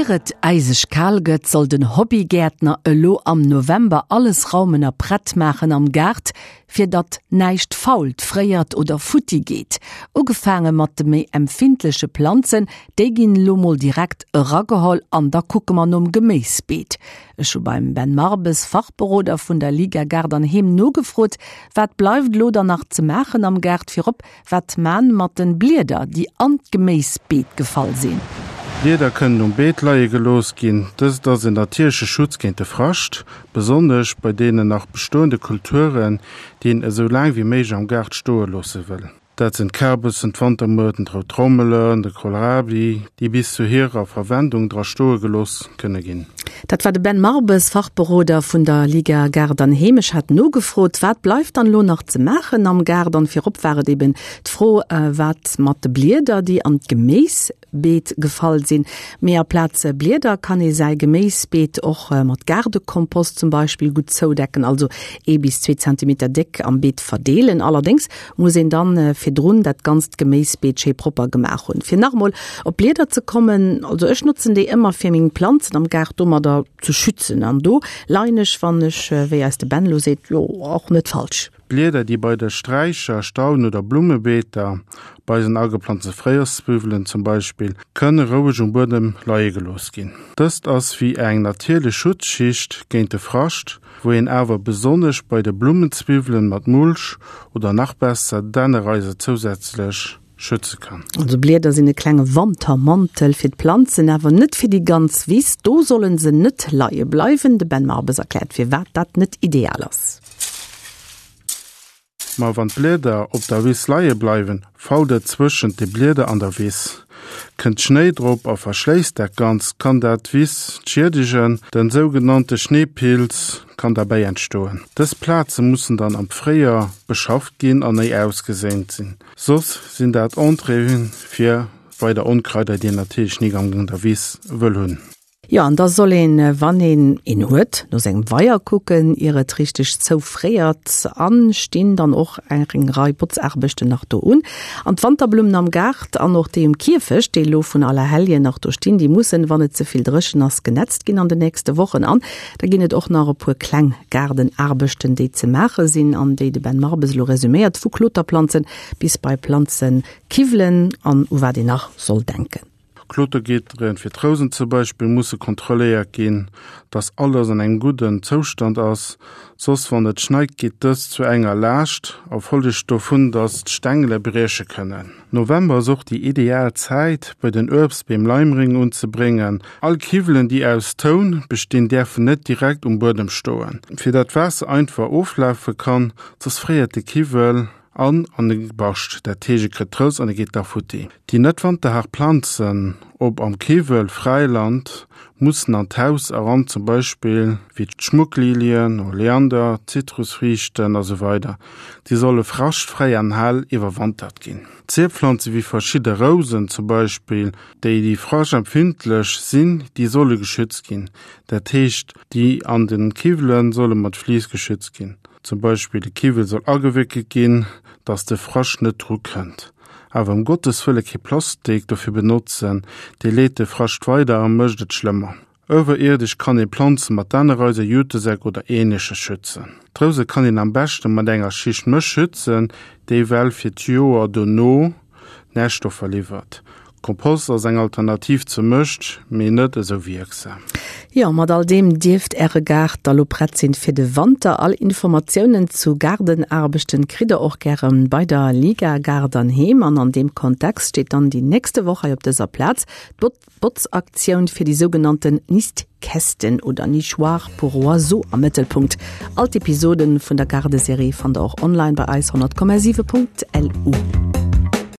Ier et äiseg kal gëtt, soll den Hobbygäertner elo am November alles raumen a prett maachen am Gaart, fir datt näischt fault, fréiert oder futti geet. Ugefaange mat de méi empfindleche Planzen, déi ginn elo mol direkt erageholl an da kucke mer nom Geméisbeet. Ech hu beim Ben Marbes, Fachberoder vun der Liga Gaart an Heem nogefrot, wat bleift elo dann nach ze maachen am Gaart, virop Wat man mat den Blieder déi an d'Geméisbeet gefall sinn? Blieder kënnen um Beet leie gelooss ginn. Dëst ass en natierleche Schutz géint de Frascht, besonnesch bei deenen nach bestoende Kulturen, déi een esou laang wéi méiglech am Gaart stoe loosse wëll. Dat sinn d'Kärbessen, d'Wantermuerten, d'rout Trommelen, de Kohlrabi, déi bis zu hirer Verwendung dra stoe gelooss kënne ginn. Dat war de Ben Marbes, Fachberoder vun der Liga Gaart an Heem. Ech hat nogefrot, wat bleift dann elo nach ze maachen am Gaart? An virop war et eben d'Fro, wat mat de Blieder, déi an d'Geméisbeet gefall sinn. Mee aplaz Blieder kann ee säi Geméisbeet och mat Gaardekompost zum Beispill gutt zoudecken, also ee bis zwee Zentimeter déck am Beet verdeelen. Allerdéngs muss een dann virdrun dat ganzt Geméisbeet schéi propper gemaach hunn. Fir nach emol op d'Blieder ze kommen, also ech notzen déi ëmmer fir meng Planzen am Gaart domadder ze schützen an do leien ech, wann ech, wéi eis de Ben elo seet, jo och net falsch. Blieder déi bei de Sträicher, Stauden oder Blummebeeter, bei eisen ageplanzte Fréijoerszwiwwelen zum Beispill, kënne roueg um Buedem leie gelooss ginn. Dëst ass wéi eng natierlech Schutzschicht géint de Frascht, wou een awer besonnesch bei de Blummenzwiwwelen mat Mulch oder nach besser Dännereiser zousätzlech schütze kann. Also Blieder sinn e klenge Wantermantel fir d'Planzen, awer net fir déi ganz Wiss. Do sollen se net leie bleiwen. De Ben Marbes erkläert firwat dat net ideal ass. Ma wann d'Blieder op der Wiss leie bleiwen, fault et zwëschent de Blieder an der Wiss. Kënnt Schnéi drop a verschléisst dat Ganzt, kann dat d'Wiss schiedegen. Den sougenannte Schneepilz kann derbäi entstoen. Dës Plaze mussen dann am Fréijoer beschafft ginn an néi ausgeséint sinn, soss sinn dat Entréeë fir weider Onkraider, déi een natierlech nik an der Wiss wëll hunn. Jo, an da soll een, wann een een huet, no sengem Weier kucken, ier et richteg zoufréiert. An stinn dann och eng Rei Botzaarbechten nach do un. An d'Wanterblummen am Gaart an och déi um Kierfecht, déi elo vun Allerhelljen nach do stinn, déi mussen, wann et ze vill dréchen ass, genetzt ginn an den nächste Wochen. An da ginn et och nach e puer kleng Gaardenaarbechten, déi ze maache sinn an déi de Ben Marbes elo resuméiert, vu Kloterplanzen bis bei Planzekiwwelen an u wat een nach soll denken. Klotergitteren fir d'Rousen zum Beispill musse kontrolléiert ginn, dass alles an engem gudden Zoustand ass, soss wann et schneit geet dëst zu enger Laascht a follegt dovun, dass d'Stängele brieche kënnen. November ass och déi ideal Zäit bei den Uebstbeem Leimréng unzebréngen. All Kiwwelen déi aus Toun bestinn däerfen net direkt um Buedem stoen, fir dat d'Waasser einfach oflafe kann, soss fréiert de Kiwwel. An an e bascht dat heescht e kritt d'Rous an e geet da futti. Déi net wanterhaart Planzen, ob am Kiwwel, Fräiland, mussen an d'Haus eran, zum Beispill wéi d'Schmucklilien, Oleander, Zitrusfriichten a sou weider Déi solle fraschtfräi an hell iwwerwantert ginn. Zierpflanze wéi verschidde Rousen zum Beispill, déi déi fraschtempfindlech sinn, déi solle geschützt ginn. Dat heescht déi an de Kiwwele solle mat Vlies geschützt ginn. Zum Beispill de Kiwwel soll agewéckelt ginn, dass de Frascht net dru kënnt. Awer ëm Gottes Wëlle kee Plastik dofir benotzen, dee leet de Frascht weider a mécht et schlëmmer. Iwwerierdesch kann ee Planze mat Dännereiser, Jutesäck oder ähnleches schützen. D'Rouse kann een am beschte mat enger Schicht Mësch schützen, déi well fir d'Joer dono Närstoffer liwwert. Kompost ass eng Alternativ zur Mëscht, mee net esou wierksam. Jo, mat all deem dierft Äre Gaart da lo prett sinn fir de Wanter. All Informatiounen zu Gaardenaarbechten kritt der och gäre bei der Liga Gaart an Heem. An an deem Kontext steet dann déi nächste Woch hei op dëser Plaz d'Botzaktioun fir déi sougenannten Nistkästen oder Nichoirs pour oiseaux am Mëttelpunkt. All d'Episoden vun der Gaardeserie fannt der och online bei eis 100,7.lu.